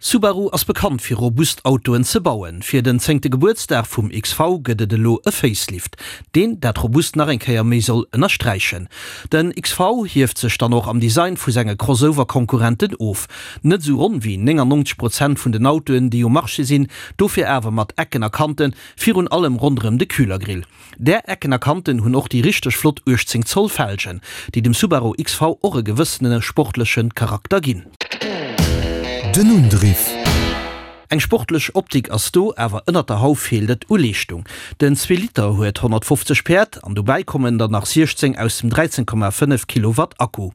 Subaru ass bekannt fir robust Autoen ze bauen. Fir den zéngte Gebuertsdag vum XV gëtt et elo e Facelift, deen dat robust nach eng Kéier méi soll ënnersträichen. Den XV hieft sech dann och am Design vu senge Crossover-Konkurrenten of. Net esou ronn wéi 99 Prozent vun den Autoen déi um Marché sinn, dofir awer mat Ecken a Kanten, virun allem ronderëm de Kühlergrill. Där Ecken a Kanten hunn och déi richteg flott 18 Zoll Felgen, déi dem Subaru XV och e gewëssene sportleche Charakter ginn. Den Undriff. Eng sportlech Optik ass do, awer ënnert der Hauf feelt et u Leeschtung. Den Zweeliter huet 150 Päerd an dobäi kommen der nach 16 aus dem 13,5 Kilowatt Akku.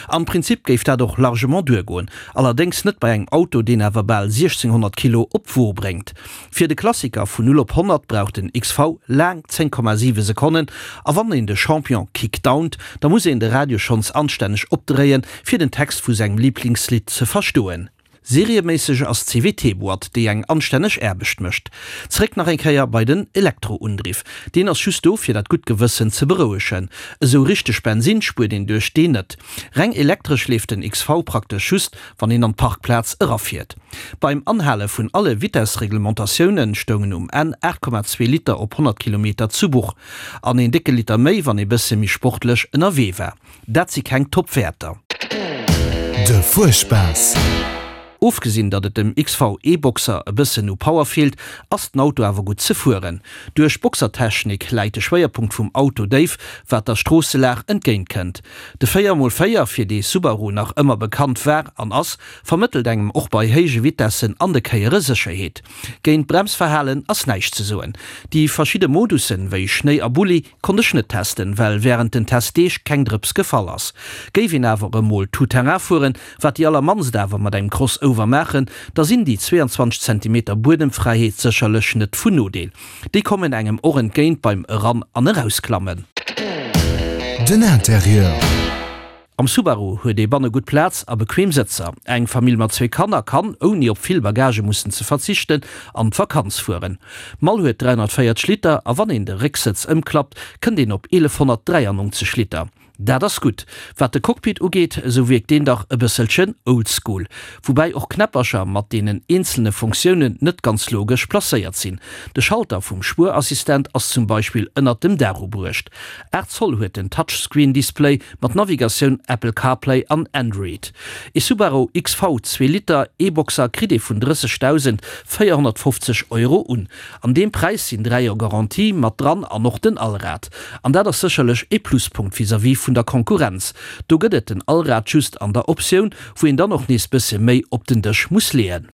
Am Prinzip géif dat och largement duergoen, allerdéngs net bei engem Auto, deen awer bal 1600 Kilo op d'Wo bréngt. Fir de Klassiker vun 0 op 100 brauch den XV laang 10,7 Sekonnen a wann een de Champion kickdownt, da muss een de Radio schonns anstänneg opdréien, fir den Text vu sengem Liblingslidd ze verstoen. Serieméisseg ass d'CVT-Boîte, déi eng anstänneg Aarbecht mécht. Zeréck nach eng Kéier bei den Elektroundriff. Deen ass just do, fir dat gutt Gewëssen ze berouegen. Esou richteg Bensin spuert een duerch deen net. Reng elektresch leeft den XV praktesch just, wann een an d'Parkplaz erafiert. Beim Anhale vun alle Vitessreglementatiounen stoungen um Enn 8,2 Liter op 100 Kilometer zu Buch. An een décke Liter méi, wann ee bësse méi sportlech ënnerwee war. Dat si keng Top-Wäerter. De Fuerspaass. Ofgesinn, datt et dem XV E-Boxer e bëssen u Power feelt, ass den Auto awer gutt ze fueren. Duerch d'Boxertechnik läit de Schwéierpunkt vum Auto déif, wat der Stroosselag entgéint kënnt. De 4 mol 4, fir dee Subaru nach ëmmer bekannt war an ass, vermëttelt engem och bei héije Vitessen an de Kéiere Sécherheet. Géint d'Bremsverhalen ass näischt ze soen. Déi verschidde Modussen, wéi Schnéi a Bulli, konnt ech net testen, well wärend den Testdeeg keng Drëps gefall ass. Géif een awer emol tout terrain fueren, wat déi allermannst awer mat engem Crossover maachen, da sinn déi 22 Zentimeter Buedemfräiheet sécherlech net vun Nodeel. Déi kommen engem och entgéint beim Eran an Erausklammen. Den Interieur. Am Subaru huet ee banne gutt Plaz a bequem Sëtzer. Eng Famill mat zwee Kanner kann, ouni op vill Bagage mussen ze verzichten, an d'Vakanz fueren. D'Mall huet 340 Liter a wann een de Récksëtz ëmklappt, kënnt een op 1193 Liter. Dat ass gutt. Wat de Cockpit ugeet, esou wierkt deen dach e bësselchen oldschool. Woubäi och Knäppercher mat deenen eenzelne Funktiounen net ganz logesch placéiert sinn. De Schalter vum Spuerassistent ass zum Beispill ënnert dem Daach ubruecht. 8 Zoll huet den Touchscreen-Display mat Navigatioun, Apple CarPlay an Android. Ee Subaru XV zwee Liter E-Boxer kritt ee vun 30.450 Euro un. An deem Präis sinn 3 Joer Garantie mat dran an och den Allrad. An dat ass sécherlech ee Pluspunkt vis-à-vis vun der Konkurrenz. Do gëtt et den Allrad just an der Optioun, wou een dann och nees bësse méi op den Dësch muss leeën.